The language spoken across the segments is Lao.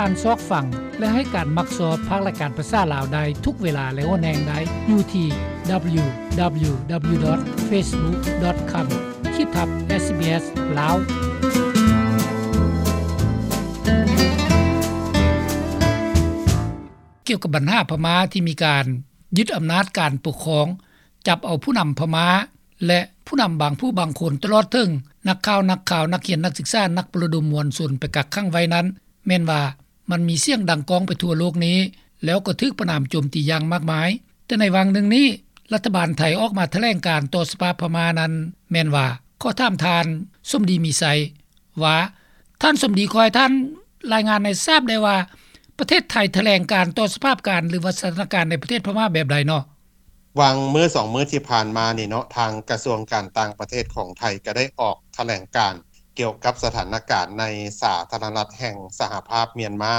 ທ່ານຊອກຟັງ ແລະ ໃຫ້ການມັກຊອບພາກລາຍການພາສາລາວໄດ້ທຸກເວລາ ແລະ ຫົວແຮງໄດ້ຢູ່ທີ່ www.facebook.com ຂີດທັບ SBS ລາວ. ກ່ຽວກັບບັນຫາພະມ້າທີ່ມີການຍຶດອຳນາດການປົກຄອງ, ຈັບເອົາຜູ້ນຳພະມ້າ ແລະ ຜູ້ນຳບາງຜູ້ບາງຄົນ ຕະຫຼອດເຖິງນັກຂ່າວ, ນັກຂ່າວ, ນັກຮຽນ, ນັກສຶກສາ, ນັກປະລະດົມມວນຊົນໄປກັກຂັງໄວ້ນັ້ນ ແມ່ນວ່າມັນມີສຽງດັງກ້ອງໄປທົ່ວໂລກນີ້ ແລ້ວກໍຖືກປະນາມໂຈມຕີຢ່າງມາກມາຍ. ແຕ່ໃນຫວ່າງໜຶ່ງນີ້ ລັດຖະບານໄທອອກມາຖະແຫຼງການຕໍ່ສະພາບພະມ້ານັ້ນ ແມ່ນວ່າ ຂໍຖາມທ່ານສົມດີ ມີໄຊ ວ່າ ທ່ານສົມດີ ຂໍໃຫ້ທ່ານລາຍງານໃຫ້ຊາບໄດ້ວ່າ ປະເທດໄທຖະແຫຼງການຕໍ່ສະພາບການ ຫຼືວ່າສະຖານະການໃນປະເທດພະມ້າແບບໃດເນາະ? ຫວ່າງມື້ສອງມື້ທີ່ຜ່ານມານີ້ເນາະ ທາງກະຊວງການຕ່າງປະເທດຂອງໄທກໍໄດ້ອອກຖະແຫຼງການກ່ຽວກັບສະຖານະການໃນສາທາລະນະລັດແຫ່ງສະຫະພາບມຽນມາ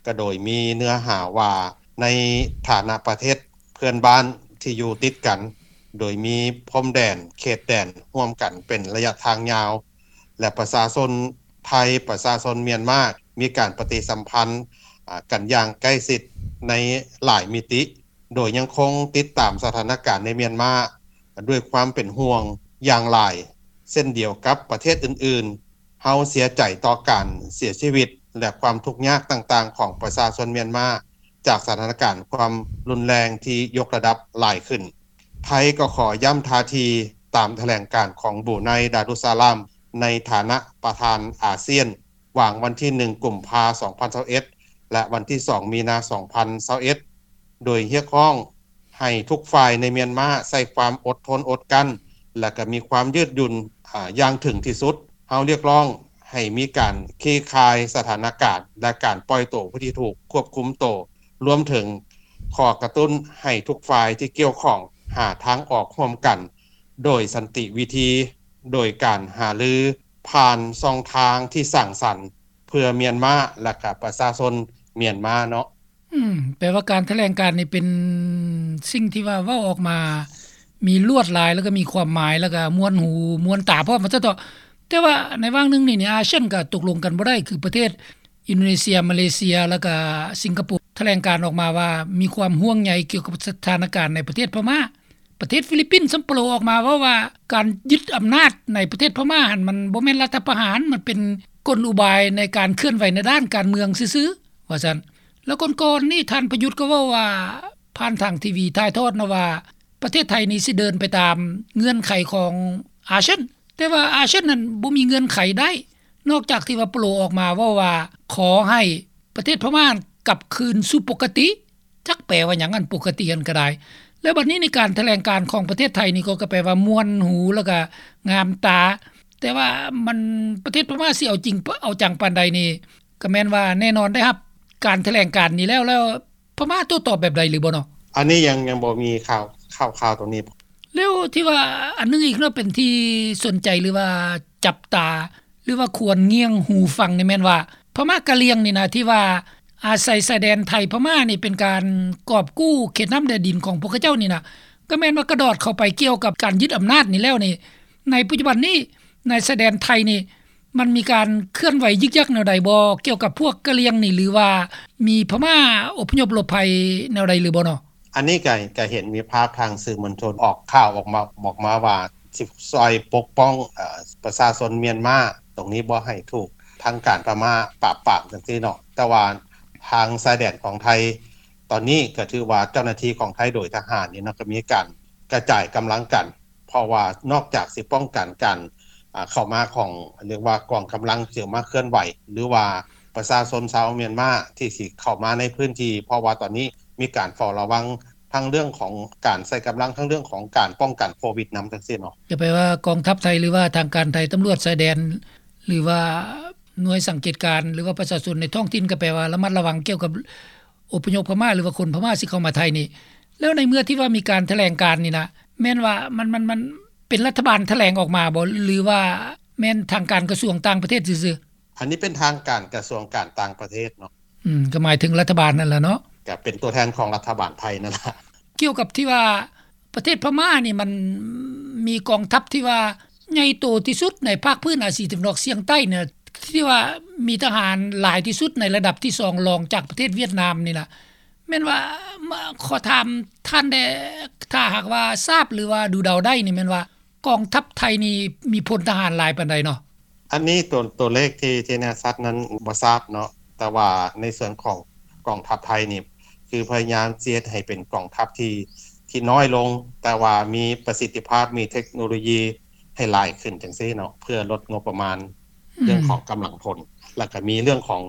ກໍໂດຍມີເນື້ອຫາວ່າ ໃນຖານະປະເທດເພື່ອນບ້ານທີ່ຢູ່ຕິດກັນ ໂດຍມີພົມແດນ ເຂດແດນຮ່ວມກັນເປັນໄລຍະທາງຍາວ ແລະ ປະຊາຊົນໄທ ປະຊາຊົນມຽນມາ ມີການປະຕິສຳພັນ ອາ ກັນຢ່າງໃກ້ຊິດໃນຫຼາຍມິຕິ ໂດຍຍັງຄົງຕິດຕາມສະຖານະການໃນມຽນມາດ້ວຍຄວາມເປັນຫ່ວງຢ່າງຫຼາຍ ເຊັ່ນດຽວກັບປະເທດອື່ນໆ. ເຮົາເສຍໃຈຕໍ່ການເສຍຊີວິດ ແລະ ຄວາມທຸກຍາກຕ່າງໆຂອງປະຊາຊົນມຽນມາ ຈາກສະຖານະການຄວາມຮຸນແຮງທີ່ຍົກລະດັບຫຼາຍຂຶ້ນ. ໄທກໍຂໍຢ້ຳທ່າທີຕາມຖະແຫຼງການຂອງບຣູໄນ ດາລຸດສະລາມ ໃນຖານະປະທານອາຊຽນ ຫວ່າງວັນທີໜຶ່ງ ກຸມພາ ສອງພັນຊາວເອັດ ແລະ ວັນທີສອງ ມີນາ ສອງພັນຊາວເອັດ ໂດຍຮຽກຮ້ອງໃຫ້ທຸກຝ່າຍໃນມຽນມາໃຊ້ຄວາມອົດທົນອົດກັ້ນ ແລະ ກໍມີຄວາມຍືດຫຍຸ່ນ ອາ ຢ່າງເຖິງທີ່ສຸດ. ເຮົາຮຽກຮ້ອງໃຫ້ມີການຄາຍສະຖານະການ ແລະ ການປ່ອຍໂຕຜູ້ທີ່ຖືກຄວບຄຸມໂຕ, ລວມເຖິງຂໍກະຕຸ້ນໃຫ້ທຸກຝ່າຍທີ່ກ່ຽວຂ້ອງຫາທາງອອກຮ່ວມກັນໂດຍສັນຕິວິທີ, ໂດຍການຫາລືຜ່ານຊ່ອງທາງທີ່ສ້າງສັນ ເພື່ອມຽນມາ ແລະ ກະປະຊາຊົນມຽນມາເນາະ. ອືມ ແປວ່າການຖະແຫຼງການນີ້ເປັນສິ່ງທີ່ວ່າເວົ້າອອກມາມີລວດລາຍ ແລ້ວກໍມີຄວາມໝາຍ ແລ້ວກໍມ່ວນຫູມ່ວນຕາພ້ອມວ່າຊັ້ນເຖາະ. ແຕ່ວ່າໃນຫວ່າງໜຶ່ງນີ້ ອາຊຽນກໍຕົກລົງກັນບໍ່ໄດ້ ຄືປະເທດອິນໂດເນເຊຍ, ມາເລເຊຍ ແລ້ວກໍສິງກະໂປ ຖະແຫຼງການອອກມາວ່າມີຄວາມຫ່ວງໃຍກ່ຽວກັບສະຖານະການໃນປະເທດພະມ້າ. ປະເທດຟີລິບປິນສ່ຳໂປລອກອອກມາເວົ້າວ່າ ການຍຶດອຳນາດໃນປະເທດພະມ້າຫັ້ນ ມັນບໍ່ແມ່ນລັດຖະປະຫານ, ມັນເປັນກົນອຸບາຍໃນການເຄື່ອນໄຫວໃນດ້ານການເມືອງຊື່ໆ ວ່າຊັ້ນ. ແລ້ວກ່ອນໆນີ້ ທ່ານປະຍຸດກໍເວົ້າວ່າ ຜ່ານທາງທີວີຖ່າຍທອດນະວ່າ ປະເທດໄທນີ້ຊິເດີນໄປຕາມເງື່ອນໄຂຂອງອາຊຽນ, ແຕ່ວ່າອາຊຽນນັ້ນບໍ່ມີເງື່ອນໄຂໃດ ນອກຈາກທີ່ວ່າໂປລອອກມາເວົ້າວ່າ ຂໍໃຫ້ປະເທດພະມ້າກັບຄືນສູ່ປົກກະຕິ. ຈັກແປວ່າຫຍັງອັນປົກກະຕິຫັ້ນກໍໄດ້. ແລ້ວບັດນີ້ໃນການຖະແຫຼງການຂອງປະເທດໄທນີ້ກໍ ກໍແປວ່າມ່ວນຫູ ແລ້ວກໍງາມຕາ, ແຕ່ວ່າມັນ ປະເທດພະມ້າຊິເອົາຈິງເອົາຈັງປານໃດນີ້ ກໍແມ່ນວ່າແນ່ນອນໄດ້ຮັບການຖະແຫຼງການນີ້ແລ້ວ ແລ້ວພະມ້າໂຕ້ຕອບແບບໃດຫຼືບໍ່ເນາະ? ອັນນີ້ຍັງ ຍັງບໍ່ມີຂ່າວ ຂ່າວ ຂ່າວຕົງນີ້. ແລ້ວທີ່ວ່າອັນໜຶ່ງອີກເນາະ ເປັນທີ່ສົນໃຈ ຫຼືວ່າຈັບຕາ ຫຼືວ່າຄວນງ່ຽງຫູຟັງນີ້ແມ່ນວ່າ ພະມ້າກະຫຼ່ຽງນີ້ນະ ທີ່ວ່າອາໄສຊາຍແດນໄທພະມ້ານີ້ ເປັນການກອບກູ້ເຂດນ້ຳແດນດິນຂອງພວກເຂົາເຈົ້ານີ້ນະ ກໍແມ່ນວ່າກະດອດເຂົ້າໄປກ່ຽວກັບການຍຶດອຳນາດນີ້ແລ້ວນີ້ ໃນປັດຈຸບັນນີ້ ໃນຊາຍແດນໄທນີ້ ມັນມີການເຄື່ອນໄຫວຍຶກຍັກແນວໃດບໍ່ ກ່ຽວກັບພວກກະຫຼ່ຽງນີ້ ຫຼືວ່າມີພະມ້າອົບພະຍົບຫຼົບໄພແນວໃດຫຼືບໍ່ເນາະ? ອັນນີ້ກໍ ກໍເຫັນມີພາບທາງສື່ມວນຊົນອອກຂ່າວອອກມາ ອອກມາວ່າ ຊິຊ່ອຍປົກປ້ອງ ເອີ ປະຊາຊົນມຽນມາ ຕົງນີ້ບໍ່ໃຫ້ຖືກທາງການພະມ້າປາບປາມຈັ່ງຊີ້ເນາະ. ແຕ່ວ່າທາງຊາຍແດນຂອງໄທ ຕອນນີ້ກໍຖືວ່າເຈົ້າໜ້າທີ່ຂອງໄທໂດຍທະຫານນີ້ເນາະ ກໍມີການກະຈາຍກຳລັງກັນ ເພາະວ່ານອກຈາກຊິປ້ອງກັນການ ອ່າ ເຂົ້າມາຂອງ ເອີ້ນວ່າກອງກຳລັງທີ່ມາເຄື່ອນໄຫວ ຫຼືວ່າປະຊາຊົນຊາວມຽນມາທີ່ຊິເຂົ້າມາໃນພື້ນທີ່ ເພາະວ່າຕອນນີ້ມີການເຝົ້າລະວັງທັງເລື່ອງຂອງການໃຊ້ກຳລັງ ທັງເລື່ອງຂອງການປ້ອງກັນໂຄວິດນຳ ຈັ່ງຊີ້ເນາະ. ກໍແປວ່າກອງທັບໄທ ຫຼືວ່າທາງການໄທ ຕຳຫຼວດຊາຍແດນ ຫຼືວ່າໜ່ວຍສັງເກດການ ຫຼືວ່າປະຊາຊົນໃນທ້ອງຖິ່ນ ກໍແປວ່າລະມັດລະວັງກ່ຽວກັບ ອົບພະຍົບພະມ້າ ຫຼືວ່າຄົນພະມ້າຊິເຂົ້າມາໄທນີ້. ແລ້ວໃນເມື່ອທີ່ວ່າມີການຖະແຫຼງການນີ້ນະ ແມ່ນວ່າມັນ ມັນ ມັນເປັນລັດຖະບານຖະແຫຼງອອກມາບໍ່ ຫຼືວ່າແມ່ນທາງການກະຊວງຕ່າງປະເທດຊື່ໆ? ອັນນີ້ເປັນທາງການກະຊວງການຕ່າງປະເທດເນາະ. ອືມ ກໍໝາຍເຖິງລັດຖະບານນັ້ນລະເນາະ. ກໍເປັນຕົວແທນຂອງລັດຖະບານໄທນັ້ນລະ. ກ່ຽວກັບທີ່ວ່າ ປະເທດພະມ້ານີ້ມັນມີກອງທັບທີ່ວ່າໃຫຍ່ໂຕທີ່ສຸດໃນພາກພື້ນອາຊີຕາເວັນອອກສ່ຽງໃຕ້ນີ້ ທີ່ວ່າມີທະຫານຫຼາຍທີ່ສຸດໃນລະດັບທີສອງ ລອງຈາກປະເທດຫວຽດນາມນີ້ລະ ແມ່ນວ່າ ມາ ຂໍຖາມທ່ານແດ່ ຖ້າຫາກວ່າຊາບ ຫຼືວ່າດູເດົາໄດ້ນີ້ ແມ່ນວ່າກອງທັບໄທນີ້ມີພົນທະຫານຫຼາຍປານໃດເນາະ? ອັນນີ້ໂຕ ໂຕເລກທີ່ ທີ່ແນ່ຊັດນັ້ນບໍ່ຊາບເນາະ ແຕ່ວ່າໃນສ່ວນຂອງກອງທັບໄທນີ້ ຄືພະຍາຍາມຊິເຮັດໃຫ້ເປັນກອງທັບທີ່ ທີ່ນ້ອຍລົງ ແຕ່ວ່າມີປະສິດທິພາບ ມີເທັກໂນໂລຢີໃຫ້ຫຼາຍຂຶ້ນຈັ່ງຊີ້ເນາະ ເພື່ອລົດງົບປະມານ ອືມ ເລື່ອງຂອງກຳລັງພົນ ແລ້ວກໍມີເລື່ອງຂອງ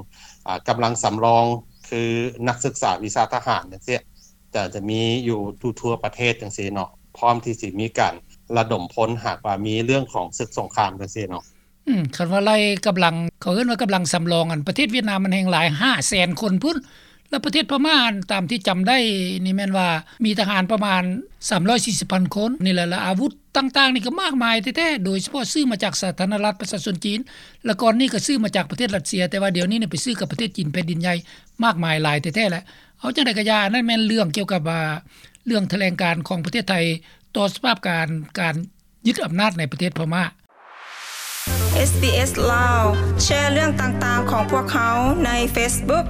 ອາ ກຳລັງສຳລອງ ຄືນັກສຶກສາວິຊາທະຫານຈັ່ງຊີ້ ຈະ ຈະມີຢູ່ທົ່ວໆປະເທດຈັ່ງຊີ້ເນາະ ພ້ອມທີ່ຊິມີການລະດົມພົນ ຫາກວ່າມີເລື່ອງຂອງສຶກສົງຄາມຈັ່ງຊີ້ເນາະ. ອືມ ຄັນວ່າໄລ່ກຳລັງ ເຂົາເອີ້ນວ່າກຳລັງສຳລອງ ອັນປະເທດຫວຽດນາມມັນແຮ່ງຫຼາຍ ຫ້າແສນຄົນພຸ້ນ ແລ້ວປະເທດພະມ້າ ອັນຕາມທີ່ຈຳໄດ້ນີ້ແມ່ນວ່າມີທະຫານປະມານສາມຮ້ອຍສີ່ສິບພັນຄົນນີ້ແຫຼະ ແລ້ວອາວຸດຕ່າງໆນີ້ກໍມາກມາຍແທ້ໆ ໂດຍສະເພາະຊື້ມາຈາກສາທາລະນະລັດປະຊາຊົນຈີນ ແລ້ວກ່ອນນີ້ກໍຊື້ມາຈາກປະເທດຣັດເຊຍ ແຕ່ວ່າດຽວນີ້ນີ້ໄປຊື້ກັບປະເທດຈີນແຜ່ນດິນໃຫຍ່ມາກມາຍຫຼາຍແທ້ໆແຫຼະ. ເອົາຈັ່ງໃດກໍຢ່າ ອັນນັ້ນແມ່ນເລື່ອງກ່ຽວກັບ ອາ ເລື່ອງຖະແຫຼງການຂອງປະເທດໄທຕໍ່ສະພາບການ ການຍຶດອຳນາດໃນປະເທດພະມ້າ. ເອສບີເອສ ລາວ ແຊເລື່ອງຕ່າງໆຂອງພວກເຮົາໃນເຟສບຸກ